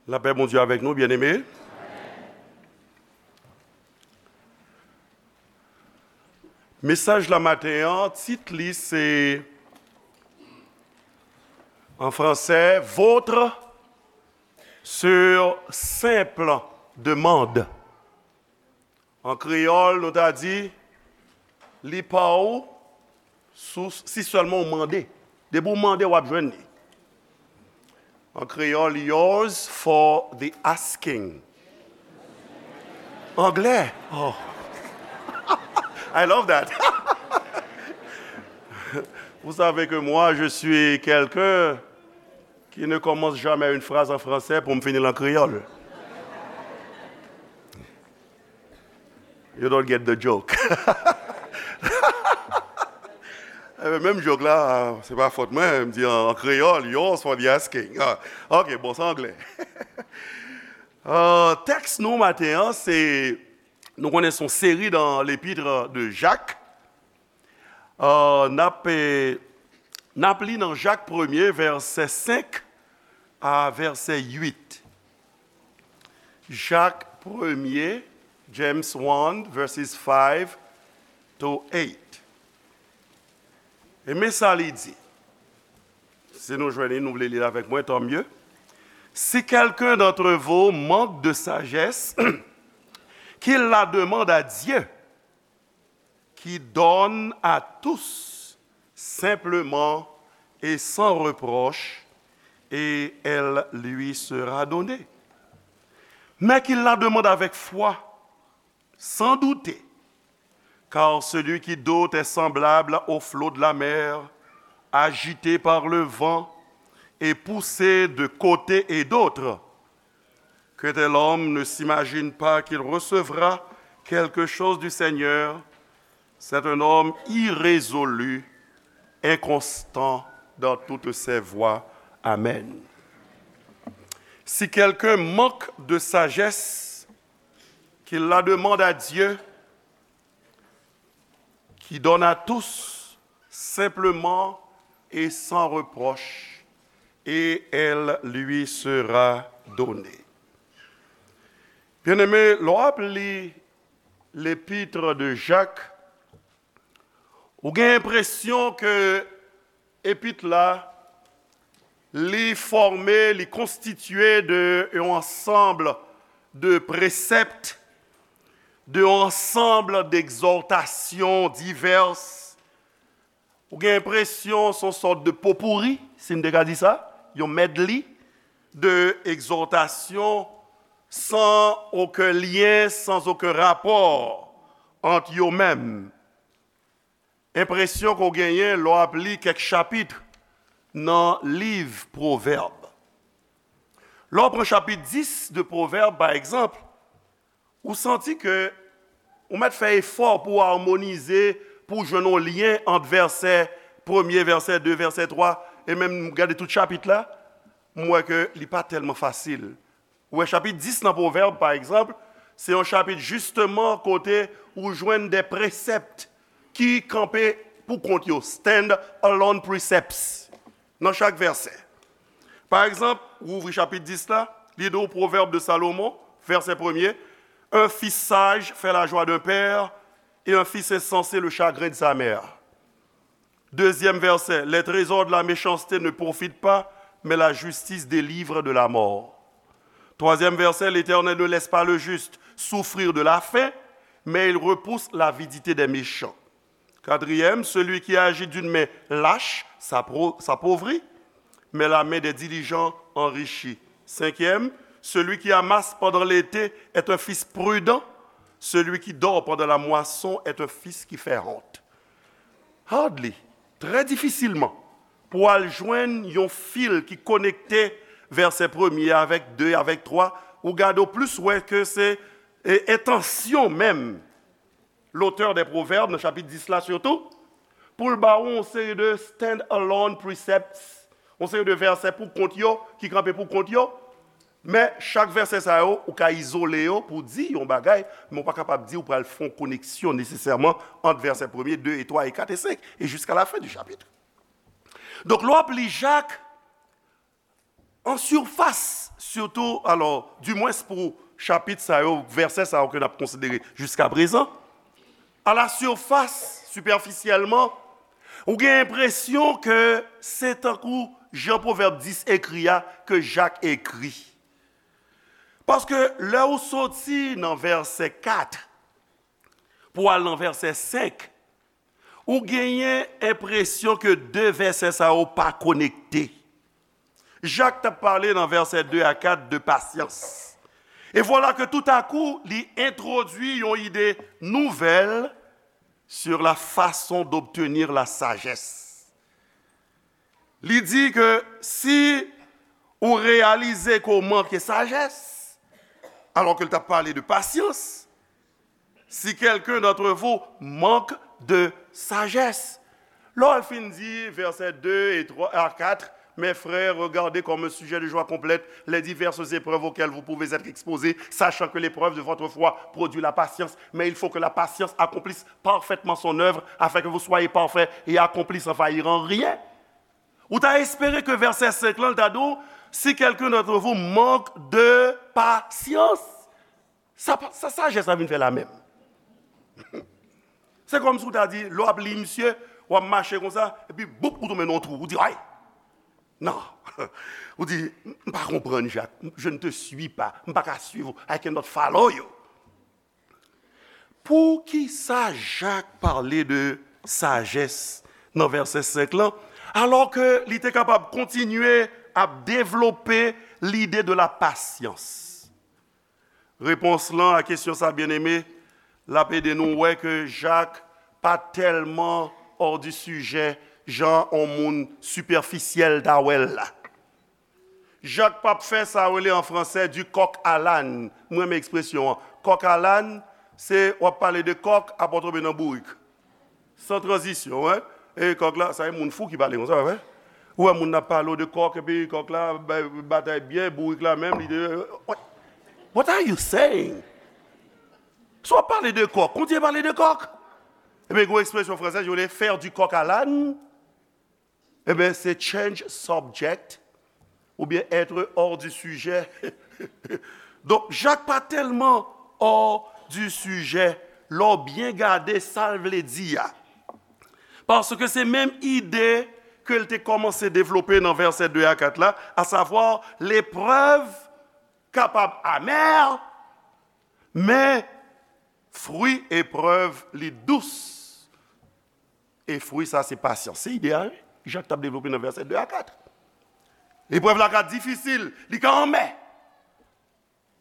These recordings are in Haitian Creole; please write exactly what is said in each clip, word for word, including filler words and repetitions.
Lapè Bondye avèk nou, byeneme. Mesaj la maten an, tit li se, an fransè, Vôtre sur simple demande. An kreyòl, nou ta di, li pa w sou, si sèlman w mande. Depi w mande, w ap jwenn li. An kreyòl, yours for the asking. Anglè. Oh. I love that. Vous savez que moi, je suis quelqu'un qui ne commence jamais une phrase en français pour me finir en créole. You don't get the joke. Menm joke la, se pa fòt mwen, m di an kreyòl, yours for the asking. Ah, ok, bon, se anglè. Uh, tèks nou maten an, se, nou konnen se yon seri nan lepitre de Jak. Uh, n ap, eh, n ap li nan Jak premye, vèsè senk a vèsè uit. Jak premye, James one, verses five to eight. E men sa li di. Si nou jwenn li, nou vle li l avèk mwen, tant mieux. Si quelqu'un d'entre vous manque de sagesse, qu'il la demande à Dieu, qui donne à tous simplement et sans reproche, et elle lui sera donnée. Mais qu'il la demande avec foi, sans douter, car celui qui doute est semblable au flot de la mer, agité par le vent et poussé de côté et d'autre. Que tel homme ne s'imagine pas qu'il recevra quelque chose du Seigneur. C'est un homme irrésolu, inconstant dans toutes ses voies. Amen. Si quelqu'un manque de sagesse, qu'il la demande à Dieu, qui donne à tous simplement et sans reproche, et elle lui sera donnée. Byeneme, lè w ap li lepitre de Jak, ou gen enpresyon ke epit la, li fòme, li konstitye de yon ansanm de presèpt, de yon ansanm d'egzòtasyon divès. Ou gen enpresyon se yon sòt de popouri, si n te ka di sa, yon medley de egzòtasyon san okenn lyen, sans aucun rapport entre yo menm. Enpresyon ke w genyen lè w ap li kèk chapit nan liv Pwovèb. Lè w pran chapit dis de Pwovèb, pa egzanp, ou santi ke ou mèt fè efò pou w amonize, pou w jwenn yon lyen ant vèsè premye, vèsè de, vèsè twa, e menm gade tout chapit la, m wè ke li pa tèlman fasil. Ou wè, chapit dis nan Pwovèb, pa egzanp, se yon chapit jisteman kote ou jwenn de presèpt ki kanpe pou kont yo, stand alone precepts, nan chak vèsè. Pa egzanp, ou ouvri chapit dis la, li di w Pwovèb de Salomon, vèsè premye, un fils sage fait la joie d'un père, et un fils insensé le chagrin de sa mère. Deuxième verset, les trésors de la méchanceté ne profitent pas, mais la justice délivre de la mort. Troisième verset, l'Éternel ne laisse pas le juste souffrir de la faim, mais il repousse l'avidité des méchants. Quatrième, celui qui agit d'une main lâche s'appau- s'appauvrit, mais la main des diligents enrichit. Cinquième, celui qui amasse pendant l'été est un fils prudent, celui qui dort pendant la moisson est un fils qui fait honte. Hardly, trè difisilman, pou w al jwenn yon fil ki konekte vèsè premye avèk de, avèk twa, ou gade w plis wè ke se, e, entansyon menm lotè dè Pwovèb, nan chapit dis la sitou, pou l ba w yon seri de stand alone precepts, yon seri de vèsè pou kont yo, ki kanpe pou kont yo, men chak vèsè sa yo, ou ka izole yo pou di yon bagay, men ou pa kapab di ou pral fè yon koneksyon nesesèman ant vèsè premye, de e twa e kat e senk, e jiska la fen di chapit. Donk, lè w ap li Jak, An sifas, sitou, alò, dimwens pou chapit sa yo, vèsè sa yo ke n ap konsidere jiskaprezan, à la surface, superficiellement, ou gen enpresyon ke se tankou jan Pwovèb dis ekri a, ke Jak ekri. Paske lè ou soti nan vèsè kat pou al nan vèsè senk, ou genyen enpresyon ke de vèsè sa yo pa konekte. Jak t ap pale nan vèsè de a kat de pasyans. E vwala ke toutakou, li entwodui yon ide nouvèl sur la façon d'obtenir la sagesse. Li di ke si ou reyalize ke w manke sajès, alò ke l t ap pale de pasyans, si quelqu'un d'entre vous manque de sagesse. Lè w fin di vèsè de e twa a kat, mes frères, regardez comme un sujet de joie complète les diverses épreuves auxquelles vous pouvez être exposés, sachant que l'épreuve de votre foi produit la patience, mais il faut que la patience accomplisse parfaitement son œuvre, afin que vous soyez parfaits et accomplis sans faillir en rien. Ou ta espere ke vèsè senk lan, l ta di w, si quelqu'un d'entre vous manque de patience. Sa, sa sajès la vin fè la menm. Se kòmsi w ta di, lè w ap li misye, w ap mache konsa, epi boup, ou tonbe nan yon twou. Ou di, ay! Non. Ou di, m pa konprann, Jak. Je ne te suis pas. M pa ka swiv ou. I cannot follow you. Poukisa Jak pale de sajès nan vèsè senk lan, alò ke li te kapab kontinye ap devlope lide de la pasyans? Repons lan a kesyon sa, byeneme, l ap ede nou wè ke Jak pa tèlman hors du sujet jan on moun sipèfisyèl ta wè l la. Jak p ap fè sa yo rele an fransè du coq à l'âne. Mwen renmen ekspresyon an. Coq à l'âne, se w ap pale de kòk, apre w tonbe nan bourik. San tranzisyon, wi. E kòk la, sa e moun fou ki pale konsa, wi. Ou wè moun ap pale w de kòk, epi kòk la bay batay byen, bourik la menm, li de, what, what are you saying? Si w ap pale de kòk, kontinye pale de kòk. Ebyen, gen yon ekspresyon fransèz, yo rele faire du coq à l'âne. Ebyen, se change subject oubyen être hors du sujet. Donk, Jak pa tèlman hors du sujet lè w byen gade sa l vle di a. Paske se menm ide ke l te kòmanse devlope nan vèsè de a kat la, à savoir, leprèv kapab amè, men fwi eprèv li dous. E fwi sa se pasyans. Se ide a, wi. Jak t ap devlope nan vèsè de a kat. Eprèv la ka difisil, li ka anmè.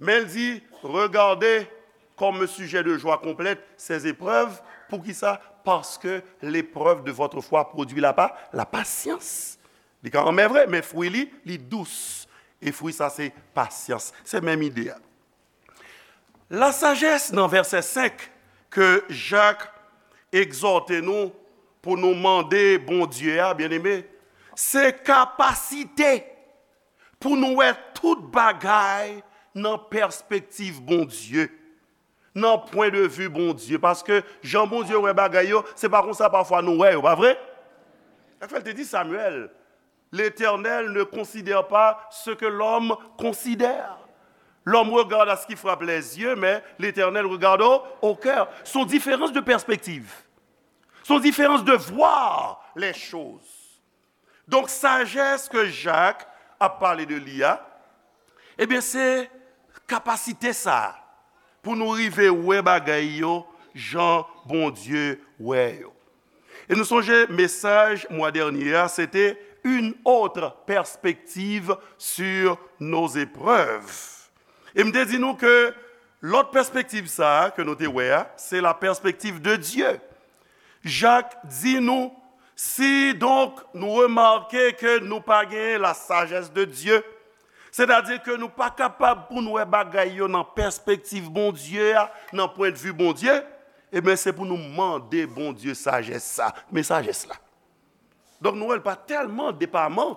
Men l di, regardez comme un sujet de joie complète ces épreuves. Poukisa? Parce que l'épreuve de votre foi produit la pa, la patience. Li ka anmè vre, men fwi li, li dous. E fwi sa se pasyans. Se menm ide a. Lasajès nan vèsè senk ke Jak egzòte nou pou nou mande Bondye a, byeneme, se kapasite pou nou wè tout bagay nan pèspektiv Bondye, nan pwen de vi Bondye. Paske jan Bondye wè bagay yo, se pa konsa pafwa nou wè yo, pa vre? Sa k fè l te di Samyèl, L'Éternel ne considère pas ce que l'homme considère. L'homme regarde à ce qui frappe les yeux, mais l'Éternel regarde au, au cœur. C'est une différence de perspective. C'est une différence de voir les choses. Donk, sajès ke Jak ap pale de li a, ebyen, se kapasite sa a pou nou rive wè bagay yo jan Bondye wè yo. E nou sonje mesaj mwa dènye a, se te une autre perspective sur nos épreuves. E m te di nou ke lòt pèspektiv sa a ke nou te wè a, se la perspective de Dieu. Jak di nou, si donk nou remake ke nou pa genyen la sagesse de Dieu, sètadi ke nou pa kapab pou n wè bagay yo nan pèspektiv Bondye a, nan pwendvi Bondye, ebyen, se pou nou mande Bondye sajès sa. Men sajès la. Donk, nou wè l pa tèlman depaman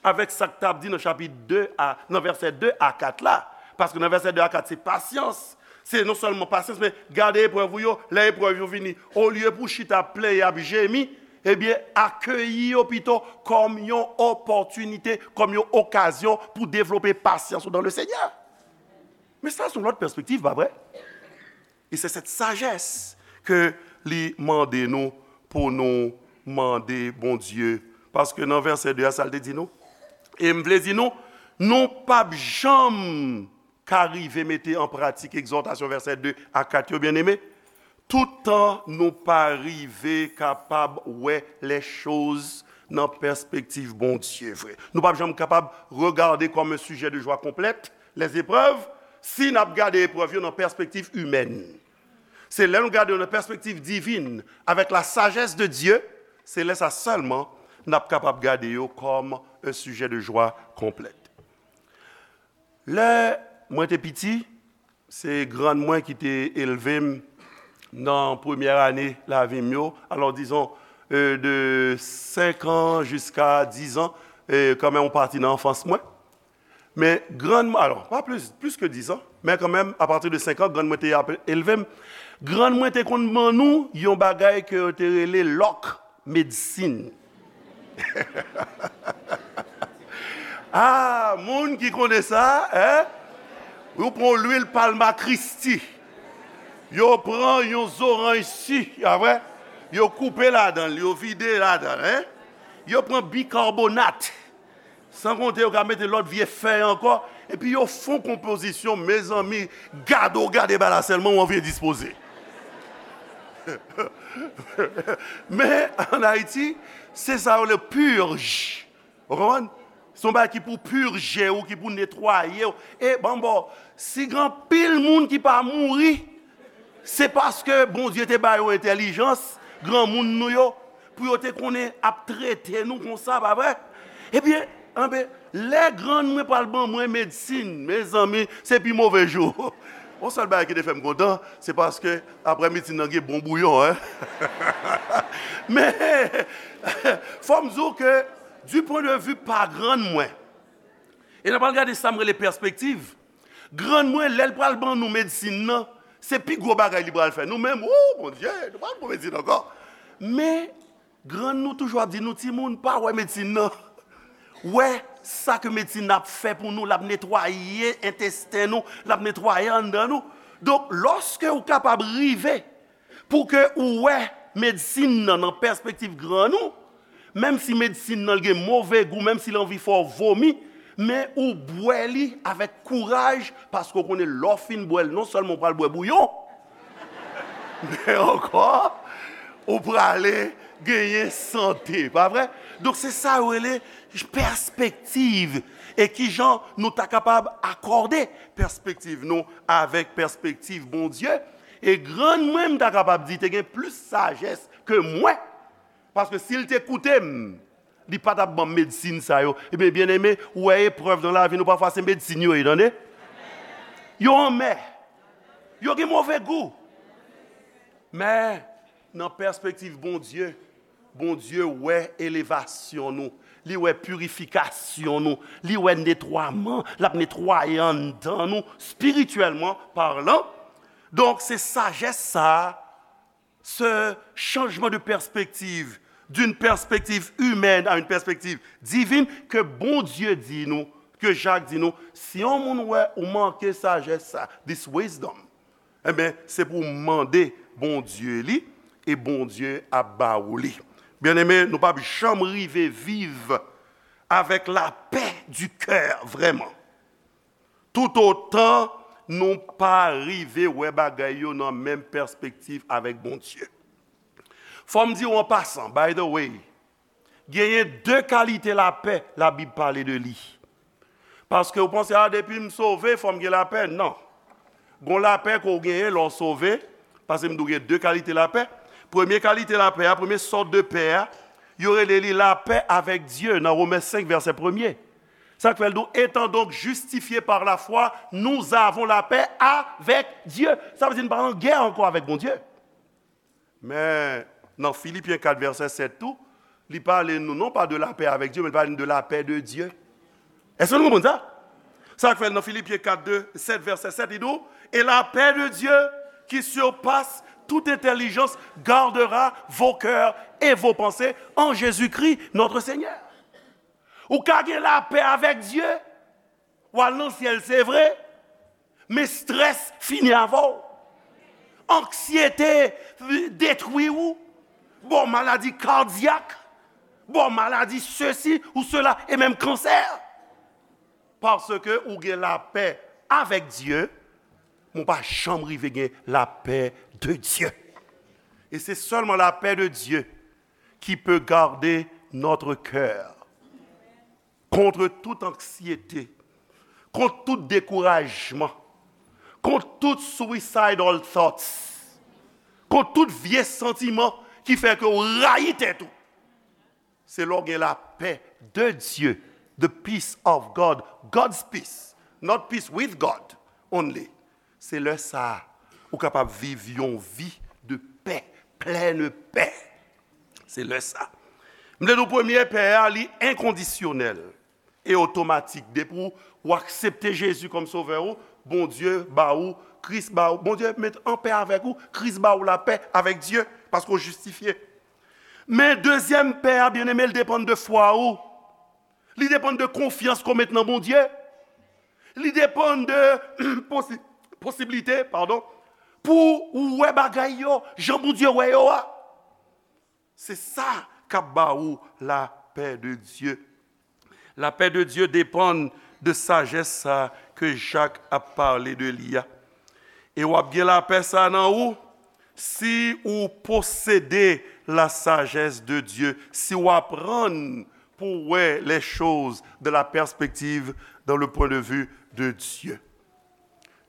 avèk sa k t ap di nan chapit de a, nan vèsè de a kat la. Paske nan vèsè de a kat, se pasyans. Se non sèlman pasyans, men gade eprèv ou yo, lè eprèv yo vini, olye pou w chita ap plenyen, ap jemi, Ebyen, akeyi yo pito kòm yon opòtinite, kòm yon okazyon pou devlope pasyans ou dans le Seigneur. Men sa, se yon lòt pèspektiv, pa vre? E se sèt sajès ke li mande nou pou nou mande Bondye. Paske nan vèsè de a, sa l te di nou? E m vle di nou, nou p ap janm ka rive mete an pratik egzòtasyon vèsè de a kat yo, byeneme, toutan nou pa rive kapab wè lèchoz nan pèspektiv Bondye vre. Nou p ap janm kapab regade kòm un sujet de joie complète les épreuves si n ap gade eprèv yo nan pèspektiv imèn. Se lè nou gade yo nan pèspektiv divin, avec la sagesse de Dieu, se lè sa sèlman n ap kapab gade yo kòm un sujet de joie complète. Lè mwen te piti, se grann mwen ki te elve m nan premyè ane lavi m yo. Alò, dizon, euh, de senk an jiska diz an, euh, kanmenm, yon pati nan anfans mwen. Men grann mwen, alò, pa plis, plis ke diz an, men kanmenm, apati de senk an, grann mwen te ap elve m. Grann mwen te konn ban nou yon bagay ke yo te rele lòk medsin. Ah, moun ki konnen sa, en? Yo pran lwil palma Kristi. Yo pran yon zoranj si, a vre? Yo koupe ladan l, yo vide ladan l, en? Yo pran bikarbonat. San konte yo ka mete lòt vye fèy ankò. Epi yo fon konpozisyon, mezanmi, gade w gade bagay la sèlman, w anvi endispoze. Men, ann Ayiti, se sa yo rele purge. Ou konprann? Se yon bagay ki pou pije w, ki pou netwaye w. E, ban m ba w, si gen anpil moun ki pa mouri, se paske Bondye te ba yo entèlijans, granmoun nou yo, pou yo te konnen ap trete nou konsa, pa vre? Ebyen, anben, lè grann mwen pral ban mwen medsin, mezanmi, se pi move jou. Yon sèl bagay ki te fè m kontan, se paske apre medsin nan gen bon bouyon, en. Men, fò m di w ke, du point de vue pa grann mwen, e n a pral gade sa m rele pèspektiv. Grann mwen, lè l pral ban nou medsin nan, se pi gwo bagay li pral fè. Nou menm, o Bondye, nou pral pran medsin ankò. Men, grann nou toujou ap di nou, "Timoun, pa wè medsin nan. Wè sa ke medsin nan ap fè pou nou, l ap netwaye entesten nou, l ap netwaye anndan nou." Donk, lòske ou kapab rive pou ke ou wè medsin nan nan pèspektiv grann ou, menm si medsin nan gen move gou, menm si l anvi fè w vomi, men ou bwè li avèk kouraj, paske w konnen lè w fin bwè l, non sèlman w pral bwè bouyon, men ankò, ou prale genyen sante, pa vre? Donk, se sa yo rele pèspektiv. E kijan nou ta kapab akòde pèspektiv nou avèk pèspektiv Bondye? E grann mwen, m ta kapab di, te gen plis sajès ke mwen. Paske si l te koute m, li pa t ap ban m medsin sa yo. Ebyen, byeneme, ou wè eprèv nan lavi nou, pafwa se medsin yo ye, tande? Yo anmè. Yo gen move gou. Men, nan pèspektiv Bondye, Bondye wè elevasyon nou, li wè pirifikasyon nou, li wè netwaman, l ap netwaye anndan nou, spirityèlman palan. Donk, se sajès sa a, ce changement de perspective, d'une perspective humaine à une perspective divine, ke Bondye di nou, ke Jak di nou, si yon moun wè ou manke sajès sa, this wisdom, enben, se pou w mande Bondye li, e Bondye ap ba ou li. Byeneme, nou p ap janm rive viv avec la paix du cœur, vrèman, toutotan nou pa rive wè bagay yo nan menm pèspektiv avèk Bondye. Fò m di w an pasan, by the way, genyen de kalite lapè Labib pale de li. Paske w panse, a, depi m sove, fò m gen lapè. Non. Gon lapè ke w genyen lè w sove, paske m di w gen de kalite lapè. Premye kalite lapè a, premye sòt de pè a, yo rele li lapè avèk Dye nan Women senk, vèsè premye. Sa k fè l di w, étant donc justifiés par la foi, nous avons la paix avec Dieu. Sa vle di n pa an gè ankò avèk Bondye. Men, nan Filipyen kat vèsè sèt tou, li pale nou non pa de la paix avec Dieu, men li pale nou de la paix de Dieu. Èske nou konprann sa? Sa k fè nan Filipyen kat de, sèt, vèsè sèt, li di w, et la paix de Dieu qui surpasse toute intelligence gardera vos cœurs et vos pensées en Jésus-Christ notre Seigneur. Ou ka gen lapè avèk Dye, w al nan syèl, se vre, men strès fini avè w. Anksyete detwi ou, ba w maladi kadyak, ba w maladi sesi ou sela, e menm kansè. Paske ou gen lapè avèk Dye, men w pa janm rive gen lapè de Dye. Et c'est seulement la paix de Dieu qui peut garder notre cœur contre toute anxiété, contre tout découragement, contre tout suicidal thoughts, contre tout vye santiman ki fè ke w rayi tèt ou. Se lè w gen lapè de Dye, the peace of God, God's peace, not peace with God only. Se lè sa a, ou kapab viv yon vi de pè, plèn pè. Se lè sa. M vle di w premye pè a, li enkondisyonèl e otomatik. Depi w, w aksepte Jezi kòm sovè ou, Bondye ba ou, Kris ba ou, Bondye met an pè avèk ou, Kris ba ou lapè avèk Dye, paske w jistifye. Men dezyèm pè a, byeneme, l depann de fwa ou. Li depann de konfyans ke w met nan Bondye. Li depann de posi-, posiblite, padon, pou ou wè bagay yo jan Bondye wè yo a. Se sa k ap ba ou lapè de Dye. Lapè de Dye depann de sajès sa ke Jak ap pale de li a. E w ap gen lapè sa nan ou si ou posede la sagesse de Dieu, si w aprann pou w wè les choses de la perspective, dans le point de vue de Dieu.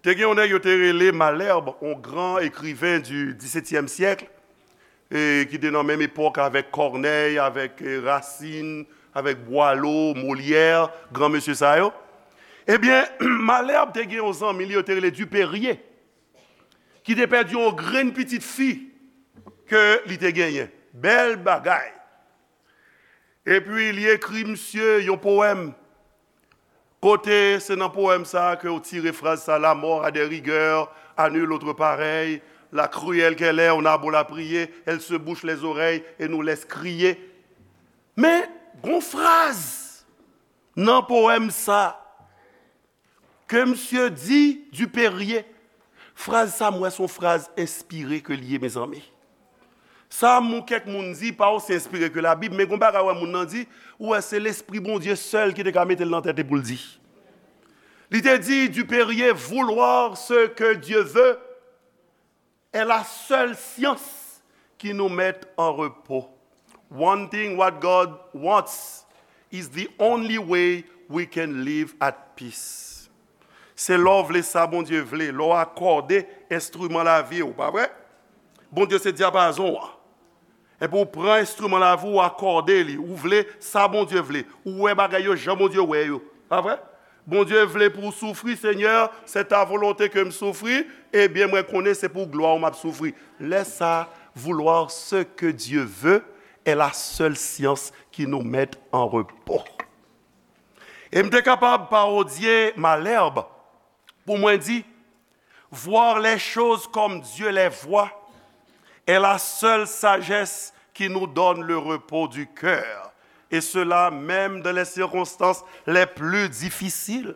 Te gen yon nèg yo te rele Malherbe, yon gran ekriven du disetyèm syèk, e ki te nan menm epòk avèk Corneille, avèk, e, Racine, avèk Boileau, Molière, gran mesye sa yo. Ebyen, Malherbe te gen yon zanmi li yo te rele Dupérier, ki te pèdi yon grenn pitit fi ke li te genyen. Bèl bagay. Epi li ekri misye yon powèm. Kote se nan powèm sa a ke w tire fraz sa, la mort a des rigueurs à nul autre pareil, la cruelle qu'elle est, on a beau la prier, elle se bouche les oreilles et nous laisse crier. Men, gon fraz nan powèm sa ke misye di Dupérier. Fraz sa, m wè se yon fraz enspire ke l ye, mezanmi. Sa m ou kèk moun di pa osi enspire ke Labib, men gon bagay wè moun nan di, ou wè se Lespri Bondye sèl ki te ka mete l nan tèt li pou l di. Li te di, Dupérier, vouloir ce que Dieu veut est la seule science qui nous met en repos. Wanting what God wants is the only way we can live at peace. Se lè w vle sa Bondye vle, lè w akòde enstriman lavi w, pa vre? Bondye se dyapazon an. Epi w pran enstriman lavi w, w akòde li, ou vle sa Bondye vle, ou wè bagay yo jan Bondye wè yo, pa vre? Bondye vle pou w soufri, Senyè, c'est ta volonté que m soufri, ebyen mwen konnen se pou glwa w m ap soufri. Lè sa, vouloir ce que Dieu veut est la seule science qui nous met en repos. E m te kapab parodye Malherbe pou mwen di, voir les choses comme Dieu les voit est la seule sagesse qui nous donne le repos du cœur, et cela même dans les circonstances les plus difficiles.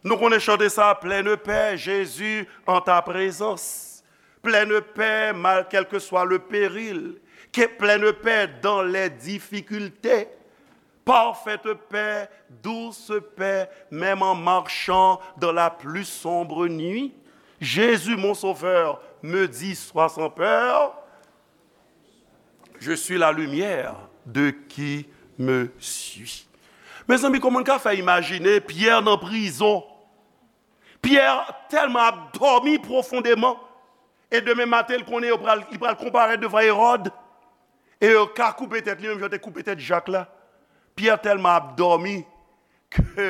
Nou konnen chante sa, pleine paix, Jésus en ta présence. Pleine paix, mal, quel que soit le péril. Que, pleine paix dans les difficultés. Parfaite paix, douce paix, même en marchant dans la plus sombre nuit. Jésus, mon sauveur, me dit, sois sans peur. Je suis la lumière de qui me suit. Mezanmi, kòman n ka fè imajine Pyè nan prizon? Pyè tèlman ap dòmi pwofondeman, e demen maten, l konnen yo pral, li pral konparèt devan Ewòd, e yo ka koupe tèt li, menm jan yo te koupe tèt Jak la. Pyè tèlman ap dòmi ke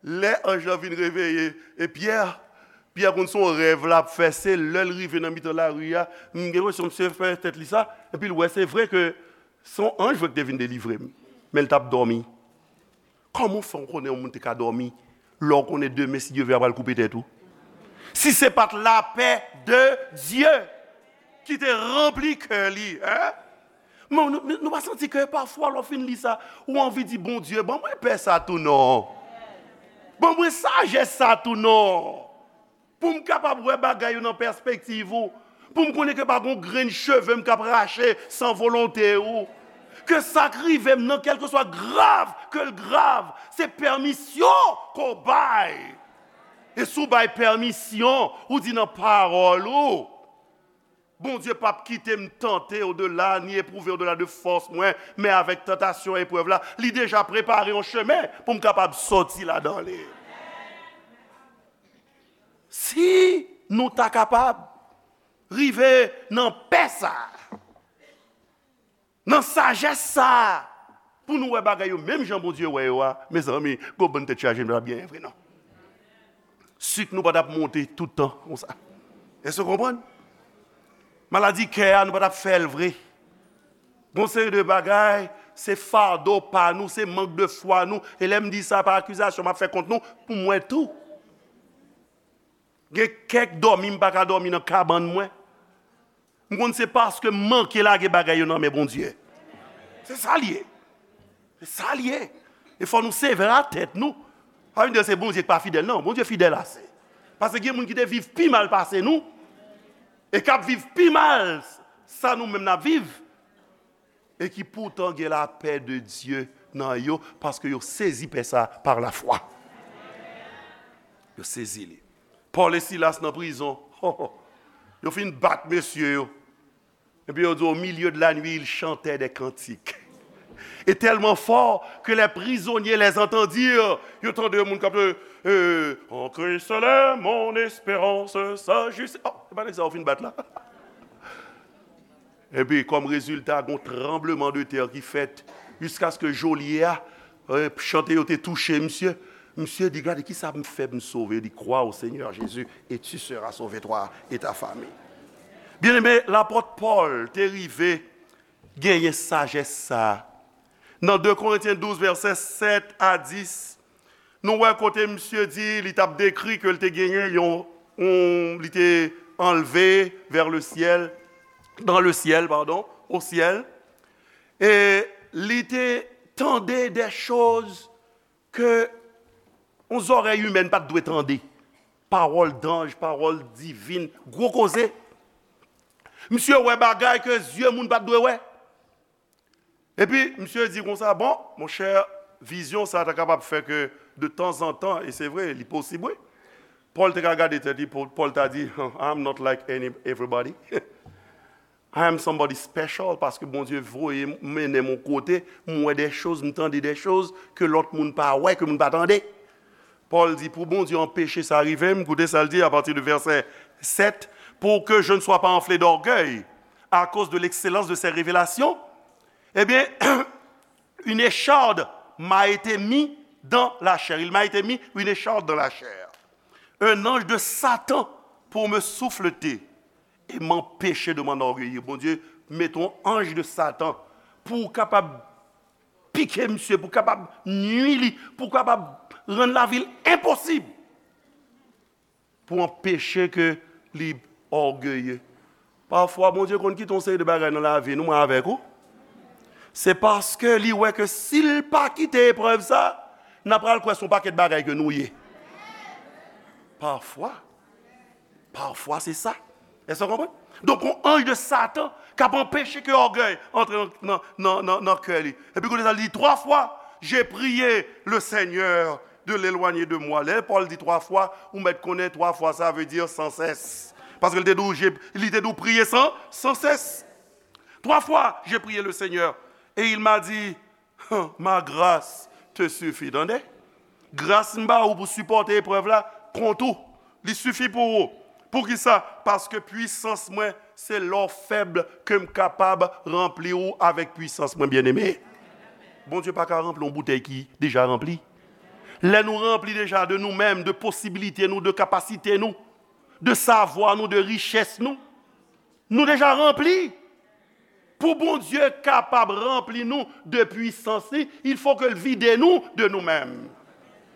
lè anj lan vin reveye, e Pyè, Pyè konn se yon rèv l ap fè, se lè l rive nan mitan lari a, m gen enpresyon misye fè tèt li sa, epi l wè se vre ke se yon anj vre ki te vin delivre m, men l t ap dòmi. Kòman w fè w konnen yon moun te ka dòmi lè w konnen demen, si Dye vle, y a pral koupe tèt ou? Si se pa t lapè de Dye. ki te ranpli kè li, en? Men nou, nou pa santi ke pafwa lè w fin li sa, ou anvi di, Bondye, ban mwen pè sa tou non. Ban mwen sajès sa tou non. Pou m kapab wè bagay yo nan pèspektiv ou. Pou m konnen ke pa gon grenn cheve m k ap rache san volonte ou. Ke sa k rive m nan, kèlkeswa grav ke l grav, se pèmisyon ke w bay. E si w bay pèmisyon, ou di nan pawòl ou, Bondye p ap kite m tante odela, ni epwouve odela de fòs mwen, men avèk tantasyon, eprèv la, li deja prepare yon chemen pou m kapab sòti ladan li. Si nou ta kapab rive nan pè sa a, nan sajès sa a, pou nou wè bagay yo menm jan Bondye wè yo a, mezanmi, gon bann tèt chaje nou ta byen vre non. Sik nou pa t ap monte tout tan konsa. Èske w konprann? Maladi kè a, nou pa t ap fè l vre. Gon seri de bagay, se fado pa nou, se mank de fwa nou. E lè m di sa pa akizasyon, m ap fè kont nou, pou mwen tou. Gen kèk dòmi m pa ka dòmi nan kabann mwen. M konn se paske m manke lage bagay yo nan men Bondye. Se sa l ye. Se sa l ye. E fò nou sevè a tèt nou. Pa vin di se Bondye ki pa fidèl, non. Bondye fidèl ase. Paske gen moun ki te viv pi mal pase nou, e k ap viv pi mal sa nou menm n ap viv, e ki poutan gen lapè de Dye nan yo, paske yo sezi pè sa pa lafwa. Yo sezi li. Pòl e Silas nan prizon. Yo fin bat mesye yo. Epi yo di, au milieu de la nuit, ils chantaient des cantiques. Et tellement fort que les prisonniers les entendirent. Yo tande yon moun k ap, euh, en Christ est mon espérance, sa jis. Oh, se pa nèg sa yo fin bat la. Epi, kòm rezilta, gon tranbleman de tè ki fèt, jiskaske jolye a, eh, chante yo te touche misye. Misye di, gade, kisa m fè pou m sove? Li, crois au Seigneur Jésus et tu seras sauvé, toi et ta famille. Byeneme, lapòt Pòl te rive genyen sajès sa a. Nan de Korentyen douz, vèsè sèt a dis, nou wè kote misye di, li t ap dekri ke l te genyen yon, yon, li te anlve vers le ciel, dans le ciel, pardon, au ciel. E li te tande des choses ke yon zòrèy imèn pa t dwe tande. Pawòl danj, pawòl divin, gwo koze. Misye wè bagay ke zye moun pa t dwe wè. Epi, misye di konsa, bon, monchè, vizyon sa ta kapab fè ke de tanzantan, e se vre, li posib, wi. Pòl te ka gade tèt li, Pòl, Pòl ta di, I'm not like any, everybody. I am somebody special, paske Bondye voye m, mennen m yon kote, m wè de choz, m tande de choz ke lòt moun pa wè, ke moun pa tande. Pòl di, pou Bondye anpeche sa rive m, koute sa l di apati de vèsè sèt, pour que je ne sois pas enflé d'orgueil à cause de l'excellence de ces révélations, eh bien, une écharde m'a été mise dans la chair. Il m'a été mis une écharde dans la chair. Un ange de Satan pour me souffleter et m'empêcher de m'enorgueillir. Bondye mete yon anj de Satan pou w kapab pike misye, pou w kapab nui li, pou w kapab rann lavi l enposib, pou anpeche ke li ògeye. Pafwa, Bondye konn kite yon seri de bagay nan lavi nou, mwen avèk ou. Se paske li wè ke si l pa kite eprèv sa, n a pral kwè se yon pakèt bagay ke nou ye. Pafwa. Pafwa, se sa. Èske w konprann? Donk, yon anj de Satan k ap anpeche ke ògèy antre nan, nan, nan, nan, nan kè li. Epi kounye sa, li di, trois fois, j'ai prié le Seigneur de l'éloigner de moi. Lè Pòl di twa fwa, ou mèt konnen twa fwa, sa vle di sans cesse. Paske li te di w, j'ai, li te di w priye san, sans cesse. Trois fois, j'ai prié le Seigneur, et il m'a dit, ma grâce te suffit. Tande? Gras m ba ou pou sipòte eprèv la, kont ou. Li sifi pou ou. Poukisa? Paske pwisans mwen, se lè w fèb ke m kapab ranpli ou avèk pwisans mwen, byeneme. Bondye pa ka ranpli yon boutèy ki deja ranpli. Lè nou ranpli deja de nou menm, de posibilite nou, de kapasite nou, de savwa nou, de richès nou, nou deja ranpli. Pou Bondye kapab ranpli nou de pwisans li, il faut ke l vide nou de nou menm.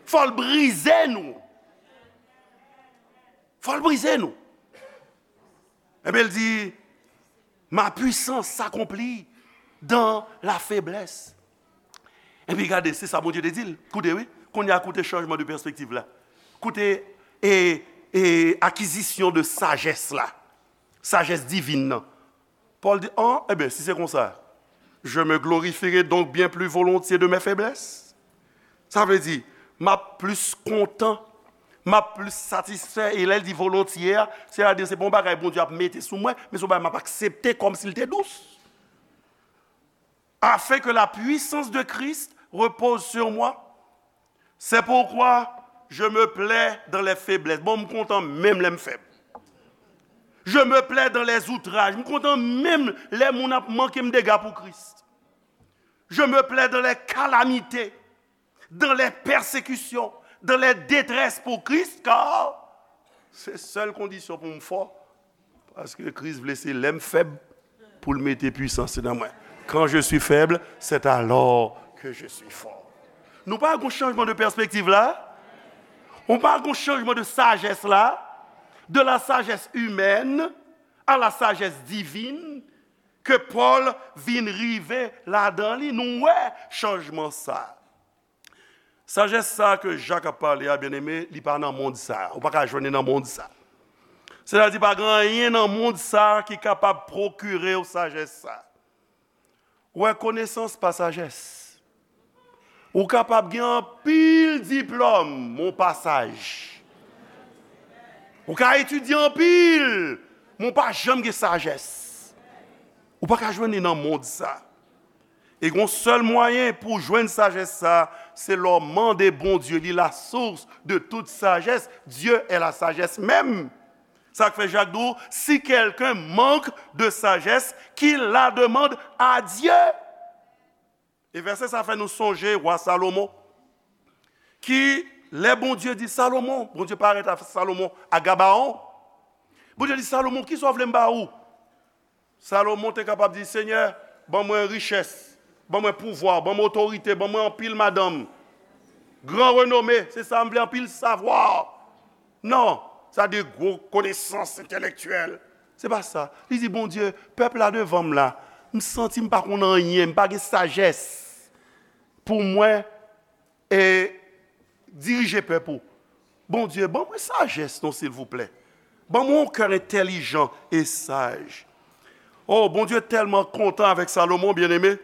Fò l brize nou. Fò l brize nou. Ebyen, l di, Ma puissance s'accomplit dans la faiblesse. Epi gade, se sa Bondye te di l. Koute, wi. Kounye a, koute chanjman de pèspektiv la. Koute, e, e, akizisyon de sajès la. Sajès divin nan. Pòl di, an, ebyen, si se konsa, je me glorifierai donc bien plus volontiers de mes faiblesses. Sa vle di, m ap plis kontan, m ap plis satisfè, e lè l di volontiers a, sètadi se pa yon bagay Bondye ap mete sou mwen, men se yon bagay m ap aksepte kòmsi l te dous. Afin que la puissance de Christ repose sur moi. C'est pourquoi je me plais dans les faiblesses. Bon, m kontan menm lè m fèb. Je me plais dans les outrages. M kontan menm lè moun ap manke m dega pou Kris. Je me plais dans les calamités, dans les persécutions, dans les détresses pour Christ, car se sèl kondisyon pou m fò, paske Kris vle se lè m fèb pou l mete pwisans nan mwen. Quand je suis faible, c'est alors que je suis fort. Nou pa gon chanjman de pèspektiv la? Nou pa gon chanjman de sajès la? De la sagesse humaine à la sagesse divine, ke Pòl vin rive ladan li, nou wè chanjman sa. Sajès sa ke Jak ap pale a, byeneme, li pa nan mond sa. Ou pa ka jwenn li nan mond sa. Sètadi, pa gen anyen nan mond sa ki kapab pwokire w sajès sa. Ou wè, konesans pa sajès. Ou kapab gen anpil diplòm, men w pa saj. Ou ka etidye anpil, men w pa janm gen sajès. Ou pa ka jwenn li nan mond sa. E gon sèl mwayen pou w jwenn sajès sa, se lè w mande Bondye, li la source de toute sagesse, Dieu est la sagesse même. Sa k fè Jak di w, si quelqu'un manque de sagesse, qu'il la demande à Dieu. E vèsè sa fè nou sonje wa Salomon, ki, lè Bondye di Salomon, Bondye parèt a Salomon a Gabaon, Bondye di Salomon, kisa w vle m ba ou? Salomon te kapab di, Senyè, ban mwen richès, ban mwen pouvwa, ban mwen otorite, ban mwen anpil madanm, gran renome, se sa m vle, anpil savwa. Non, sa de gwo konesans entèlektyèl. Se pa sa. Li di, Bondye, pèp la devan m la, m santi m pa konn anyen, m pa gen sajès pou mwen e dirije pèp ou. Bondye, ban mwen sajès non, silvouplè. Ban mwen yon kè entèlijan e saj. Oh, Bondye tèlman kontan avèk Salomon, byeneme,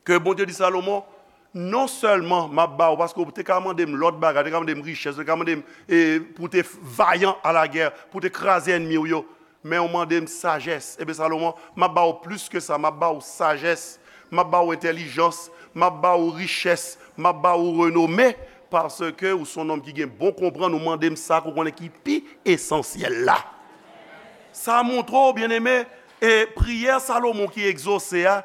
ke Bondye di Salomon, non sèlman m ap ba ou, paske ou te ka mande m lòt bagay, ou te ka mande m richès, ou te ka mande m e, pou w te vayan a la gè, pou w te kraze ènmi w yo, men ou mande m sajès. Ebyen, Salomon, m ap ba ou plis ke sa, m ap ba ou sajès, m ap ba ou entèlijans, m ap ba ou richès, m ap ba ou renome, paske ou se yon nonm ki gen bon konprann, ou mande m sa ke ou konnen ki pi esansyèl la. Sa montre w, byeneme, e priyè Salomon ki egzose a,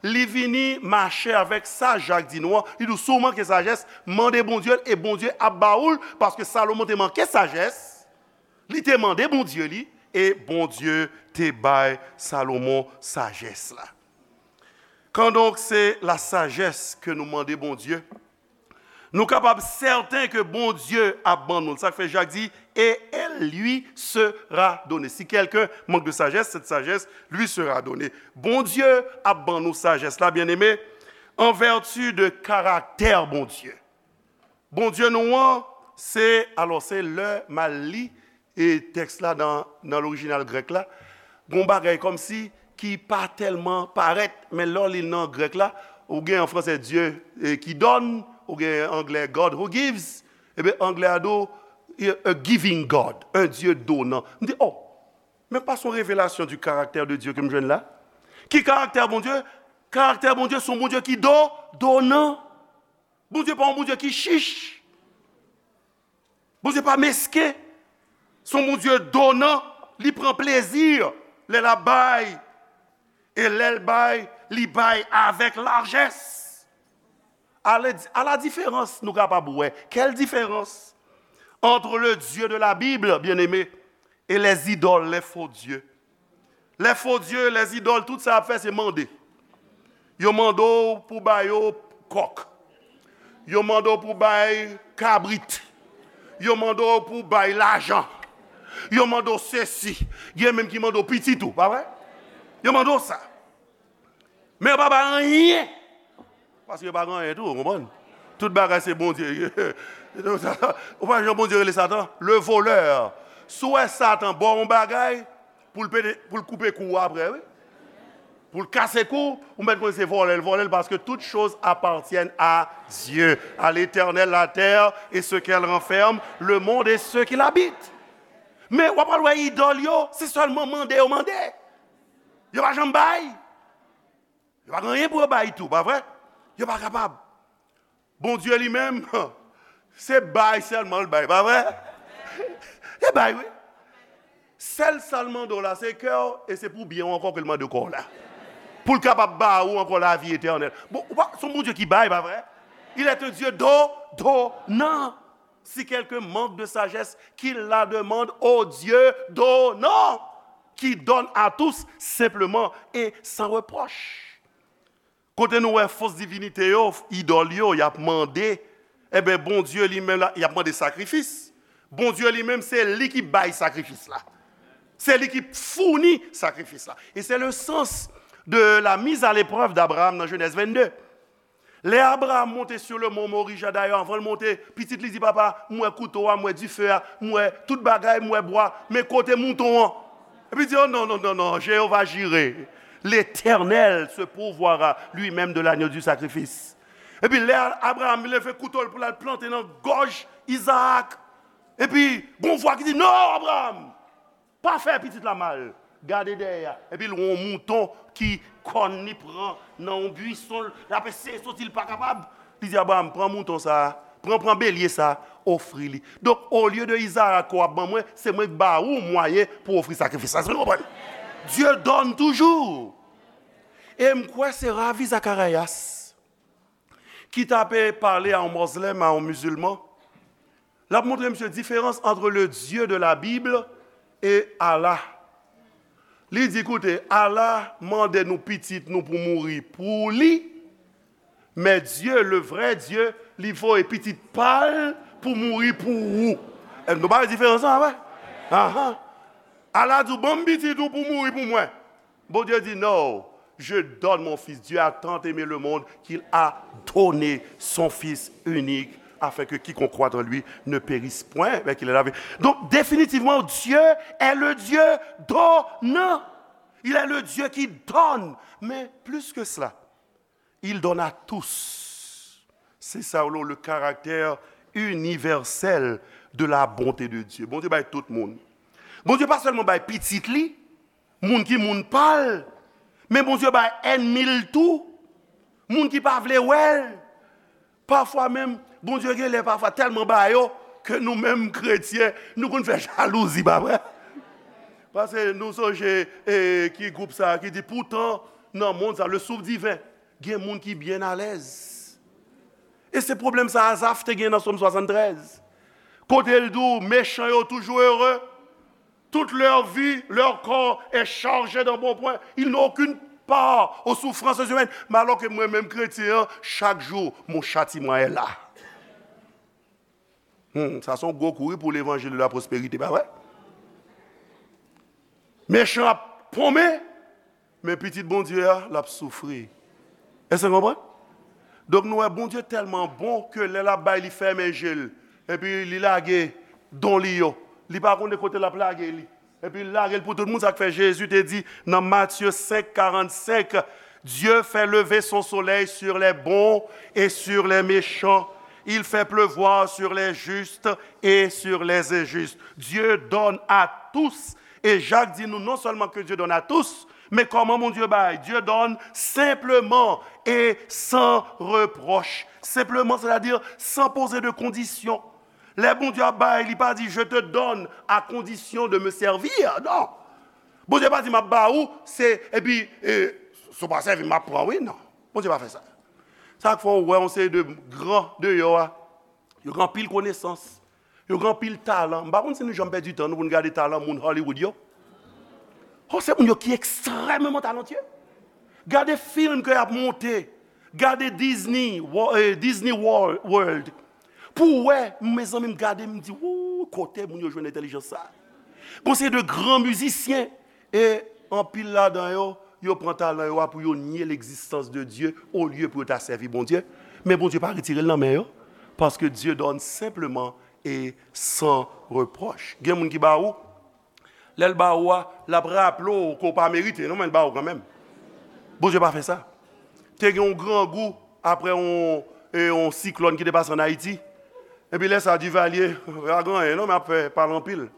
li vini mache avèk sa Jak di nou an. Li di w, si w manke sajès, mande Bondye l, e Bondye ap ba ou l, paske Salomon te manke sajès. Li te mande Bondye li, e Bondye te bay Salomon sajès la. Quand donc c'est la sagesse que nous mande Bondye, nou kapab sèten ke Bondye ap ban nou l. Sa k fè Jak di, et elle lui sera donnée. Si quelqu'un manque de sagesse, cette sagesse lui sera donnée. Bondye ap ban nou sajès la, byeneme, en vertu de karaktè Bondye. Bondye nou an, se, alò, se lè m al li e tèks la nan, nan lorijinal grèk la, gon bagay kòmsi ki pa tèlman parèt, men lè w li l nan grèk la, ou gen an fransè Dieu e, qui donne, ou gen anglè God who gives, ebyen anglè a di w, a giving God, un Dieu donnant. M di, oh, men pa se yon revelasyon du caractère de Dieu ke m jwenn la? Ki karaktè Bondye? Karaktè Bondye se yon Bondye ki do, donan. Bondye pa yon Bondye ki chich. Bondye pa mesken. Se yon Bondye donan. Li pran plezi lè l ap bay. E lè l bay, li bay avèk lajès. À la, à la différence, nou kapab wè. Quelle différence entre le Dieu de la Bible, bien-aimé, et les idoles, les faux dieux? Les faux dieux, les idoles, tout sa y ap fè, se mande. Yo mande w pou ba yo kòk. Yo mande w pou bay kabrit. Yo mande w pou bay lajan. Yo mande w sesi. Gen menm ki mande w pitit ou, pa vre? Yo mande w sa. Men yo pa bay anyen. Paske yo pa gen anyen tou, ou konprann? Tout bagay se Bondye. Ou pa jan Bondye rele Satan? Le volè. Si w wè Satan ba w yon bagay, pou l pete, pou l koupe kou w apre, wi. Pou l kase kou, ou mèt konn se vòlè l vòlè l, parce que toutes choses appartiennent à Dieu, à l'Éternel, la terre et ce qu'elle renferme, le monde et ceux qui l'habitent. Men w ap al wè idòl yo, se sèlman mande yo mande. Yo pa janm bay. Yo pa gen anyen pou yo bay tou, pa vre? Yo pa kapab. Bondye li menm, se bay sèlman l bay, pa vre? Se bay, wi. Sèl sa l mande w la, se kè w, e se pou byen w ankò ke l mande w kò w la. Pou l kapab ba ou ankò lavi etènèl. Bon, ou pa, se yon Bondye ki bay, pa vre? Il est un Dieu do, donnant. Si quelqu'un manque de sagesse, qu'il la demande au Dieu donnant, qui donne à tous simplement et sans reproche. Kote nou wè fos divinite yo, idòl yo, y ap mande, enben, Bondye li menm la, y ap mande sakrifis. Bondye li menm, se li ki bay sakrifis la. Se li ki founi sakrifis la. Et c'est le sens de la mise à l'épreuve d'Abraham dans Genèse vingt-deux. Lè Abraram monte sur le mont Moriah, dayè, anvan l monte, pitit li di, "Papa, m wè kouto a, m wè dife a, m wè tout bagay, m wè bwa, men kote mouton an?" Epi l di, "Oh, non, non, non, non, Jéhovah Jireh, l'Éternel se pourvoira lui-même de l'agneau du sacrifice." Epi lè Abraram leve kouto l pou l al plante nan gòj Izaak, epi gon vwa ki di, "Non, Abraram, pa fè pitit la mal. Gade dèyè a." Epi l wè yon mouton ki kòn li pran nan yon bwison, l ap eseye soti, l pa kapab. Li di, "Abraram, pran mouton sa a, pran, pran belye sa a, ofri li. Donk, olye de Izarak ke w ap ban mwen, se mwen k ba ou mwayen pou w ofri sakrifis la." Èske nou konprann? Dieu donne toujours. E m kwè se Ravi Zacharias ki t ape pale a yon mozlèm, a yon mizilman, l ap montre misye diferans entre le Dieu de la Bible et Allah. Li di, "Koute, Allah mande nou pitit nou pou mouri pou li, men Dieu, le vrai Dieu, li voye pitit pa l pou mouri pou ou." E nou pa wè diferans lan, pa vre? Ahan. Allah di w, "Ban m pitit ou pou mouri pou mwen." Bondye di, "Non, je donne mon fils." Dieu a tant aimé le monde qu'il a donné son fils unique, afin que quiconque croit en lui ne périsse point, mais qu'il ait la vie. Donc, définitivement, Dieu est le Dieu donnant. Il est le Dieu qui donne. Mais plus que cela, il donne à tous. C'est ça, le, le caractère universel de la bonté de Dieu. Bondye bay tout moun. Bondye pa sèlman bay pitit li, moun ki moun pa l, men Bondye bay ènmi l tou, moun ki pa vle wè l. Pafwa menm, Bondye gen lè pafwa tèlman ba yo ke nou menm kretyen, nou konn fè jalouzi, pa vre? Paske nou sonje, e, ki gwoup sa a ki di, "Pourtant, nan mond sa, le souffle divin, gen moun ki byen alèz." E se pwoblèm sa Azaf te gen nan Sòm swasanntrèz. Kote l di w, "Mechan yo toujou ere. Toute leur vie, leur corps est chargé d'embonpoint. Ils n'ont aucune part aux souffrances humaines." Men alò ke mwen menm kretyen an, chak jou, mon châtiment est là. Hmm, sa se yon gwo kou wi pou levanjil de la pwosperite, pa vre? Mechan ap ponmen, men pitit Bondye a, l ap soufri. Èske nou konprann? Donk, nou wè Bondye tèlman bon ke lè l ap bay, li fèmen je l. Epi li lage don li yo. Li pa konnen kote l ap lage li. Epi l lage l pou tout moun. Sa k fè Jezi te di nan Matye senk karannsenk, "Dieu fait lever son soleil sur les bons et sur les méchants. Il fait pleuvoir sur les justes et sur les injustes." Dieu donne à tous. E Jak di nou non sèlman ke Dieu donne à tous, men kòman Bondye bay? Dieu donne simplement et sans reproche. Simplement, c'est-à-dire sans poser de condition. Lè Bondye ap bay, li pa di, "Je te donne à condition de me servir." Non. Bondye pa di, "M ap ba ou, se, epi, e, si w pa sèvi m, m ap pran, wi." Non. Bondye pa fè sa. Sa k fè w wè yon seri de gran deyò a, yo gen anpil konesans, yo gen anpil talan. M pa konn si nou janm pèdi tan nou pou n gade talan moun Hollywood yo. Oh, se moun yo ki ekstrèmeman talantye. Gade fim ke y ap monte. Gade Disney, Wo-, eh, Disney World. Pou w wè, mezanmi, m gade, m di, "Wou, kote moun yo jwenn entèlijans sa a?" Gon seri de gran mizisyen, e anpil ladan yo, yo pran talan yo a pou yo nye legzistans de Dye olye pou yo ta sèvi Bondye. Men Bondye pa retire l nan men yo, paske Dieu donne simplement et sans reproche. Gen moun ki ba ou, lè l ba ou a, l ap raple w ke w pa merite, non, men l ba ou kanmenm. Bondye pa fè sa. Te gen yon grangou apre yon, e, yon siklòn ki te pase ann Ayiti. Epi lè sa, Duvalier, pa gen anyen, non, men ap fè pale anpil.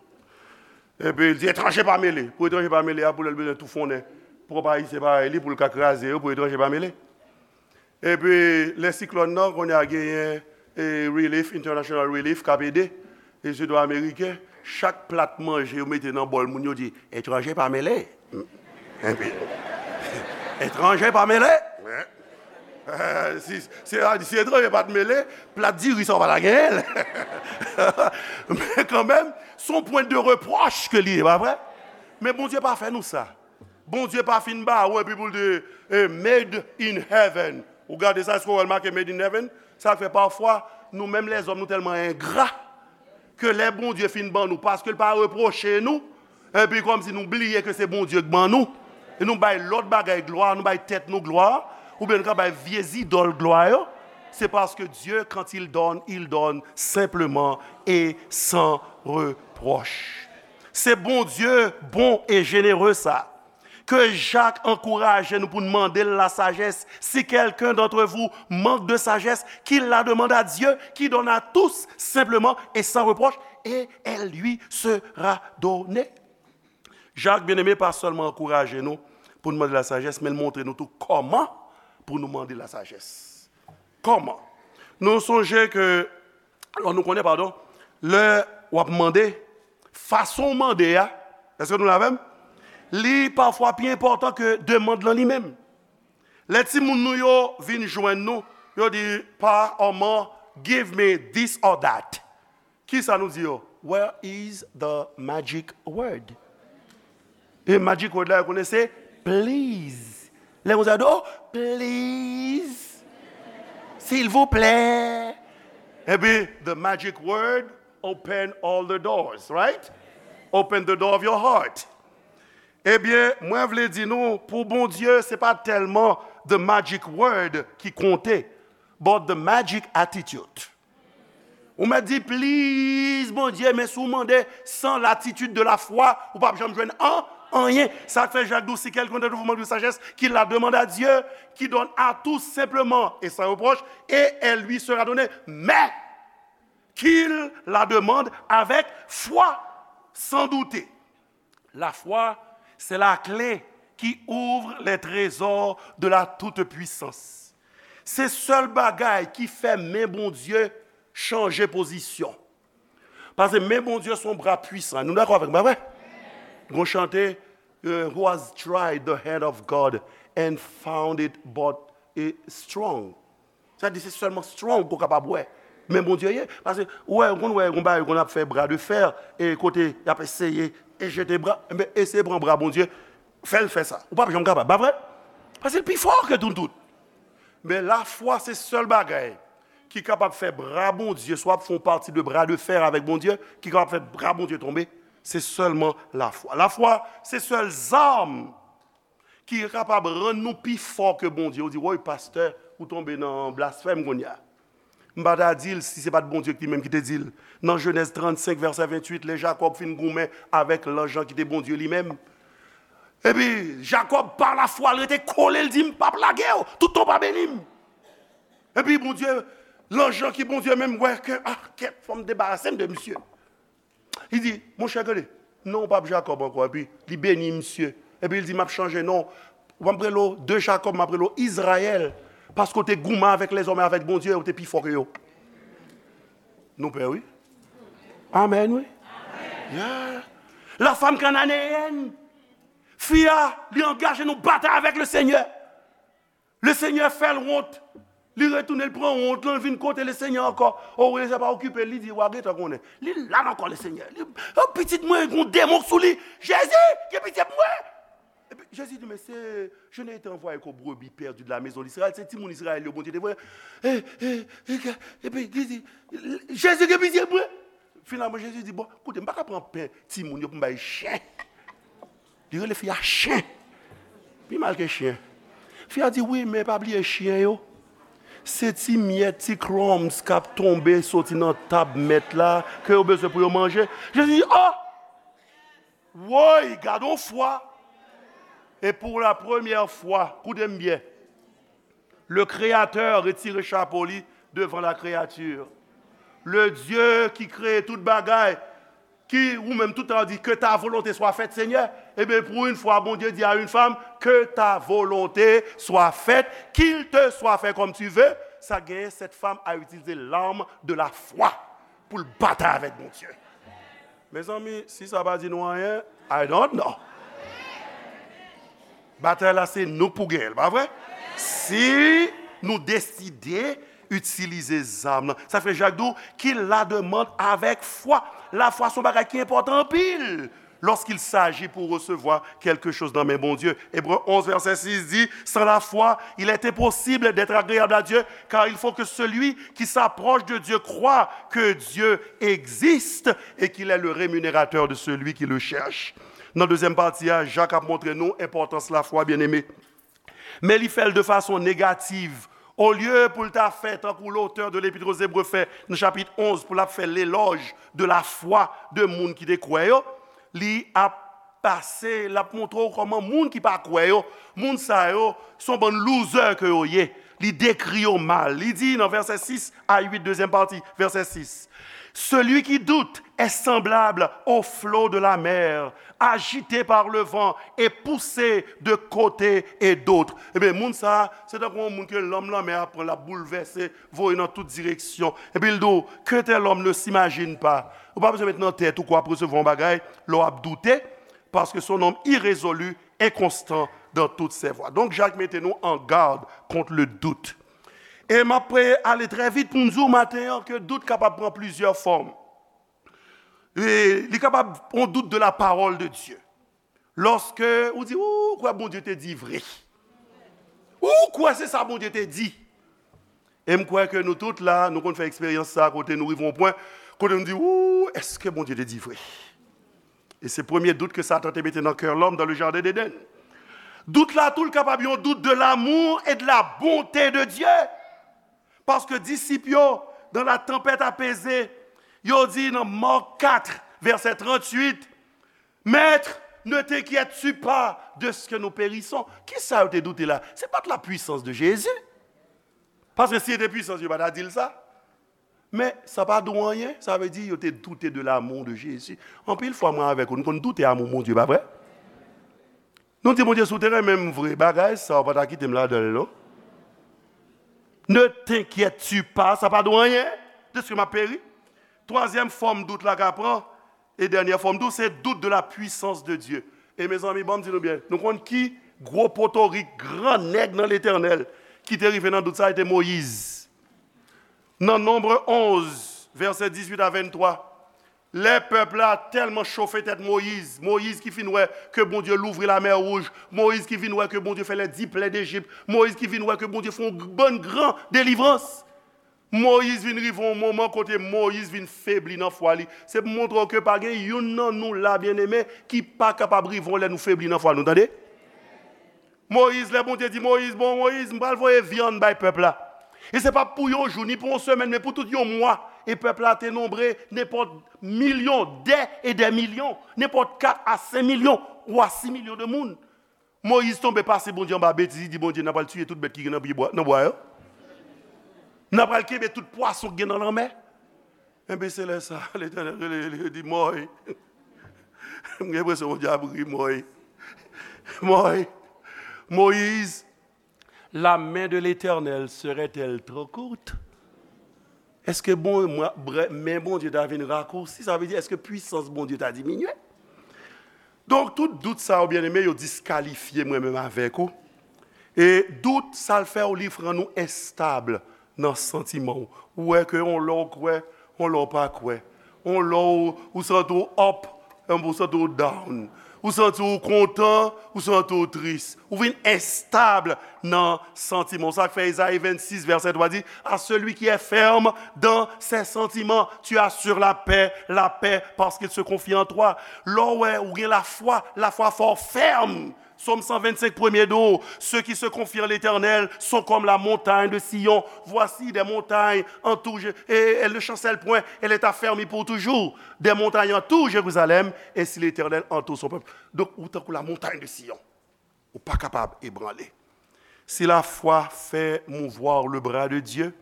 Epi l di, etranje pa mele. Pou etranje pa mele a, pou lè l bezwen toufonnen pwòp Ayisyen parèy li, pou l ka kraze yo, pou etranje pa mele. Epi, lè siklòn nan, kounye a genyen, e, relief, international relief, k ap ede, e, se dwa ameriken, chak plat manje yo mete nan bòl moun yo di, etranje pa mele. Epi, etranje pa mele. Eh, si, si, si etranje pa t mele, plat diri sa w pa ta genyen l. Men kanmenm, se yon pwen de repwòch ke li ye, pa vre? Men Bondye pa fè nou sa. Bondye pa fin ba ou epi pou l di, eh, made in heaven. Ou gade sa, èske w wè l make made in heaven? Sa fè pafwa, nou menm lèzòm, nou tèlman engra, ke lè Bondye fin ban nou, paske l pa repwoche nou, epi kòmsi nou bliye ke se Bondye k ban nou, e nou bay lòt bagay glwa, nou bay tèt nou glwa, oubyen nou ka bay vye zidòl glwa yo, se paske Dieu, quand il donne, il donne simplement et sans reproche. Se Bondye bon e jenere sa. Que Jacques ankouraje nou pou n mande l lasajès. Si quelqu'un d'entre vous manque de sagesse, qu'il la demande à Dieu, qui donne à tous simplement et sans reproche, et elle lui sera donnée. Jak, byeneme, pa sèlman ankouraje nou pou n mande lasajès, men l montre nou tou kòman pou nou mande lasajès. Kòman? Nou sonje ke, alò, nou konnen, padon, lè w ap mande, fason w mande a, èske nou la avè m? Li pafwa pi enpòtan ke demann lan li menm. Lè timoun nou yo vin jwenn nou, yo di, pa, manman, give me this or that. Kisa nou di yo? Where is the magic word? E magic word la, yo konnen se please. Lè moun sa di, oh, please. Silvouplè. Epi, the magic word open all the doors, right? Open the door of your heart. Ebyen, mwen vle di nou, pou Bondye, se pa tèlman the magic word ki konte, but the magic attitude. Ou mèt di, please, Bondye, men si w mande sans l'attitude de la foi, ou p ap janm jwenn an, anyen. Sa k fè Jak di w, si quelqu'un d'entre vous manque de sagesse, qu'il la demande à Dieu, qui donne à tous simplement et sans reproche, et elle lui sera donnée. Mais qu'il la demande avec foi, sans douter. La foi, c'est la clé qui ouvre les trésors de la toute-puissance. Se sèl bagay ki fè men Bondye chanje pozisyon. Paske men Bondye se yon bra pwisan. Nou dakò avèk mwen, pa vre? Gon chante, euh, who has tried the hand of God and found it but, eh, strong. Sa di se sèlman strong ke w kapab wè. Men Bondye ye. Paske, ou wè, ou konn wè, yon bagay, konn ap fè bra de fè, e kote y ap eseye e jete bra, enben, eseye pran bra Bondye, fè l fè sa. Ou p ap janm kapab, pa vre? Paske l pi fò ke nou tout. Men lafwa se sèl bagay ki kapab fè bra Bondye, swa ap fè yon pati de bra de fè avèk Bondye, ki kapab fè bra Bondye tonbe, se sèlman lafwa. Lafwa, se sèl zam ki kapab rann nou pi fò ke Bondye. Ou di, woy, pastè, ou tonbe nan blasfèm kounye a. M pa ta di l si se pa t Bondye ki menm ki te di l. Nan Jenèz trannsenk, vèsè venntuit, lè Jakòb fin goumen avèk lanj lan ki te Bondye li menm. Epi, Jakòb, pa lafwa, l rete kole, l di, m p ap lage w, toutan w pa beni m. Epi, Bondye, lanj lan ki Bondye menm, wè ke, ah, kèt, fò m debarase m de misye. Li di, monchè, gade, non w p ap Jakòb ankò. Epi li beni misye. Epi li di, m ap chanje non w. W ap rele w de Jakòb, m ap rele w Izrayèl. Paske w te goumen avèk lèzòm e avèk Bondye, ou te pi fò ke yo. Nou pè, wi. Amèn, wi. Yeah. La femme cananéenne. Fi a, li angaje nan batay avèk Lesenyè. Lesenyè fè l wont. Li retounen, li pran wont lan, li vin kote Lesenyè ankò. O, Lesenyè pa okipe l, li di, w a gentan konnen. Li la nan kò Lesenyè. Li, o, pitit mwen, gon demon sou li. Jezi, gen pitye pou mwen. Epi Jezi di, men se, je n'ai été envoyé qu'aux brebis perdues de la maison d'Israël. Se timoun Izrayèl yo Bondye te voye. E, e, e, ke, epi li di, Jezi, gen pitye pou mwen. Finalman, Jezi di, bon, koute, m pa ka pran pen timoun yo pou m bay chen. Li rele fi a chen. Pi mal ke chen. Fi a di, wi, men pa bliye chen yo. Se ti myèt, ti crumbs k ap tonbe soti nan tab mèt la, ke yo bezwen pou yo manje. Jezi di, oh! Woy, gad on fwa! E pou la premyè fwa, koute m byen, le Créateur retire chapo li devan la créature. Le Dieu qui crée tout bagay, ki ou menm tout tan di, que ta volonté soit faite, Seigneur. Ebyen, pou yon fwa, Bondye di a yon fanm, que ta volonté soit faite, qu'il te soit fait comme tu veux. Sa genyen, cette femme a utilisé l'arme de la foi pou l batay avèk Bondye. Mezanmi, si sa pa di nou anyen, I don't know. Batay la, se nou k pou genyen l, pa vre? Si nou deside itilize zam nan. Sa fè Jak di w, qu'il la demande avec foi. Lafwa se yon bagay ki enpòtan anpil lorsqu'il s'agit pour recevoir quelque chose nan men Bondye. Ebre onz, vèsè sis di, sans la foi, il est impossible d'être agréable à Dieu, car il faut que celui qui s'approche de Dieu croit que Dieu existe et qu'il est le rémunérateur de celui qui le cherche. Nan dezyèm pati a, Jak ap montre nou enpòtans lafwa, byeneme. Men li fè l de fason negativ. Olye pou l ta fè tankou lotè de Lepit o Zebre fè nan chapit onz, pou l ap fè lelòj de lafwa de moun ki te kwè yo, li ap pase, l ap montre w kòman moun ki pa kwè yo, moun sa yo, se yon bann loser ke yo ye. Li dekri yo mal. Li di nan vèsè sis a uit, dezyèm pati, vèsè sis, celui qui doute est semblable au flot de la mer, agité par le vent et poussé de côté et d'autre. Ebyen, moun sa a, se tankou yon moun ke lanm lanmè a pran, l ap boulvèse, voye nan tout direksyon. Epi l di w, qu'un tel homme ne s'imagine pas. Ou pa bezwen met nan tèt ou ke w ap resevwa yon bagay lè w ap doute, parce que c'est un homme irrésolu, inconstant dans toutes ses voies. Donk, Jak mete nou an gad kont le doute. E m ap ale trè vit pou m di w maten an ke dout kapab pran plizyè fòm. E li kapab yon dout de la parole de Dieu. Lòske ou di, ou kwè Bondye te di vre. Ou kwè se sa Bondye te di. E m kwè ke nou tout la, nou konn fè eksperyans sa a kote nou rive yon pwen, kote nou di, ou, èske Bondye te di vre? E se premye dout ke Satan te mete nan kè lòm dans le jardin d'Éden. Dout la tou, l kapab yon dout de l'amour et de la bonté de Dieu. Paske disip yo, dans la tempête apaisée, yo di nan Mark quatre, vèsè tranntuit, Maître, ne t'inquiètes-tu pas de ce que nous périssons? Kisa yo te doute la? Se pa t la puissance de Jésus. Paske si se te pwisans, yo pa ta di l sa. Men, sa pa di w anyen, sa vle di yo te doute de l'amour de Jésus. Anpil fwa, mwen avèk ou, nou konn doute amou Bondye, pa vre? Nou di Bondye, si w te renmen m vre, bagay sa, w pa ta kite m ladan l, non. Ne t'inquiètes-tu pas, sa pa di w anyen, de ce que m ap peri. Twazyèm fòm dout la ka pran, e dènyè fòm dout, se dout de la puissance de Dieu. E mezanmi, ban m di nou byen, nou konn ki gwo potorik, gran nèg nan Letènèl ki te rive nan dout sa, se te Moyiz. Nan Nonb onz, vèsè dizuit a venntwa, lè pèp la tèlman chofe tèt Moyiz, Moyiz ki fin wè ke Bondye louvri lamè wouj, Moyiz ki vin wè ke Bondye fè lè di plè Dejip, Moyiz ki vin wè ke Bondye fè yon bann gran delivrans. Moyiz vin rive yon moman kote Moyiz vin febli nan fwa li. Se pou montre w ke pa gen youn nan nou la, byeneme, ki pa kapab rive yon lè nou febli nan fwa nou, tande? Moyiz, lè Bondye di Moyiz, bon, Moyiz, m pral voye vyann bay pèp la. E se pa pou yon jou, ni pou yon semèn, men pou tout yon mwa. E pèp la te nonbre nenpòt milyon, dè e dè milyon, nenpòt kat a senk milyon ou a sis milyon de moun. Moyiz tonbe pase Bondye anba betiz, li di Bondye, n a pral tiye tout bèt ki gen nan pye bwa, nan bwa yo. N a pral kenbe tout pwason ki gen nan lanmè. Enben, se lè sa, Letènèl rele li, li di, Mòy. M gen enpresyon Bondye ap ri, Mòy. Mòy. Moyiz, la main de l'Éternel serait-elle trop courte? Èske bon, mwen, brè, men Bondye ta vin rakousi? Sa vle di, èske pwisans Bondye ta diminye? Donk, tout dout sa yo, byeneme, yo diskalifye mwen menm avèk ou. E dout, sa l fè w, li rann ou enstab nan santiman w. Ou wè ke yon lè w kwè, yon lè w pa kwè. Yon lè w, ou santi w up, yon lè w santi w down. Ou santi w kontan, ou santi w tris. Ou vin enstab nan santiman w. Sa k fè Ezayi vennsis, vèsè twa di, à celui qui est ferme dans ses sentiments, tu assures la paix, la paix, parce qu'il se confie en toi. Lè w wè ou gen lafwa, lafwa fè w fèm Psaume cent vingt-cinq, premier do, ceux qui se confient en l'Éternel sont comme la montagne de Sion. Voici des montagnes entourent, et elle ne chancelle point, elle est affermie pour toujours. Des montagnes entourent Jérusalem, ainsi l'Éternel entoure son peuple. Donk, ou tankou la montagne de Sion. Ou pa kapab ebranle. Si la foi fait mouvoir le bras de Dieu,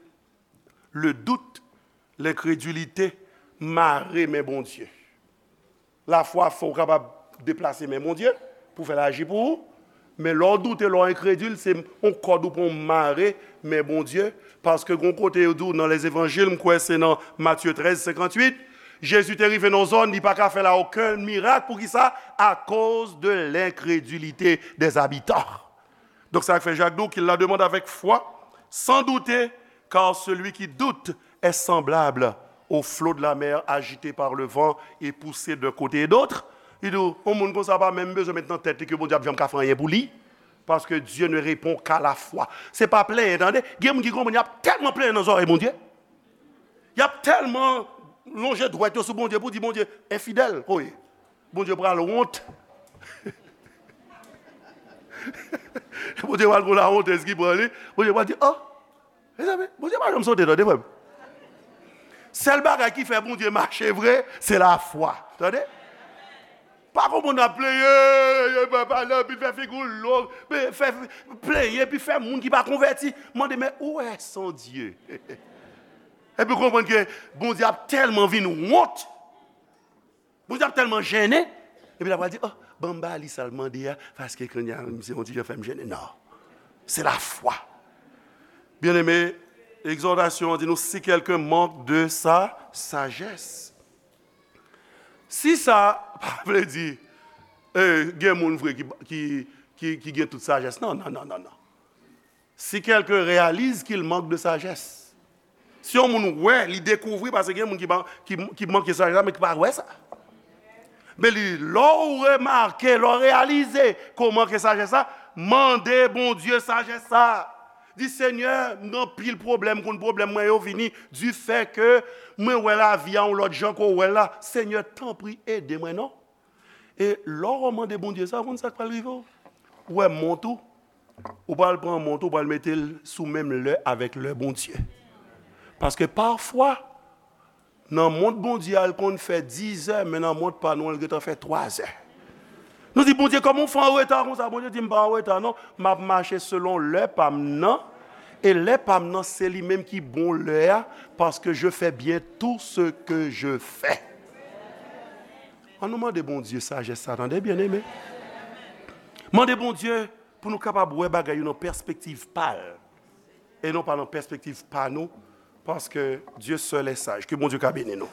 le doute, l'incrédulité mare men Bondye. Lafwa fè w kapab deplase men Bondye pou fè l aji pou ou. Men lè w doute, lè w enkredil, se yon kòd ou pran w mare men Bondye. Paske gon kote yo di w nan Lezevanjil, m kwè se nan Matye trèz senkantwit, Jezi te rive nan zòn, li pa ka fè la okenn mirak. Poukisa? Akoz de lenkredilite dè zabitan. Donk, sa k fè Jak di w, qu'il la demande avec foi, sans douter, car celui qui doute est semblable au flot de la mer agité par le vent et poussé d'un côté et d'autre. Li di w, yon moun konsa pa menm bezwen met nan tèt li ke Bondye ap janm ka fè anyen pou li, paske Dieu ne répond qu'à la foi. Se pa plenyen, tande. Gen moun ki konprann y ap tèlman plenyen nan zòrèy Bondye. Y ap tèlman lonje dwèt yo sou Bondye pou di Bondye enfidèl. Oye, Bondye pral wont. Bondye pral gon lawontèz ki pran li. Bondye pral di, oh, mezanmi, Bondye pa janm sote, tande, frè m. Sèl bagay ki fè Bondye mache vre, se lafwa. Tande? Pa konprann ap plenyen, yo pa pale anpil, fè figi w long, men fè plenyen, epi fè moun ki pa konvèti mande, men où est son Dieu? Epi konprann ke Bondye ap tèlman vin wont, Bondye ap tèlman jennen, epi l ap pral di, oh, ban m ba li sa l mande a, paske kounye a, misye yon ti jan fè m jennen. Non. Se lafwa. Byeneme, egzòtasyon an di nou, si quelqu'un manque de sa sagesse. Si sa pa vle di, eh, gen moun vre ki, ki, ki, ki gen tout sajès. Non, non, non, non, non. Si quelqu'un réalise qu'il manque de sagesse. Si yon moun wè, li dekouvri, paske gen moun ki, ki, ki manke sajès la, men ki pa wè sa. Men li, lè w remake, lè w reyalize ke w manke sajès la, mande Bondye sajès sa. Di, Senyè, m gen anpil pwoblèm, konn pwoblèm mwen yo vini, di fè ke mwen wè lavi a yon lòt jan ke w wè l la. Senyè, tanpri, ede mwen non. E lè w mande Bondye sa, ou konn sa k pral rive w? Ou wè mont ou, ou pral pran mont ou, ou pral mete l sou menm lè avèk lè Bondye. Paske pafwa, nan mont Bondye a, l konn fè dizè, men nan mont pa nou an, l gentan fè twazè. Nou di, Bondye, kòman w fè an reta konsa? Bondye di, m pa an reta non, m ap mache selon lè pa m nan. E lè pa m nan, se li menm ki bon lè a, paske je fais bien tout ce que je fais. An nou mande Bondye sajès sa, tande, byeneme. Mande Bondye pou nou kapab wè bagay yo nan pèspektiv pa l, e non pa nan pèspektiv pa nou, paske Dieu seul est sage. Ke Bondye ka beni nou.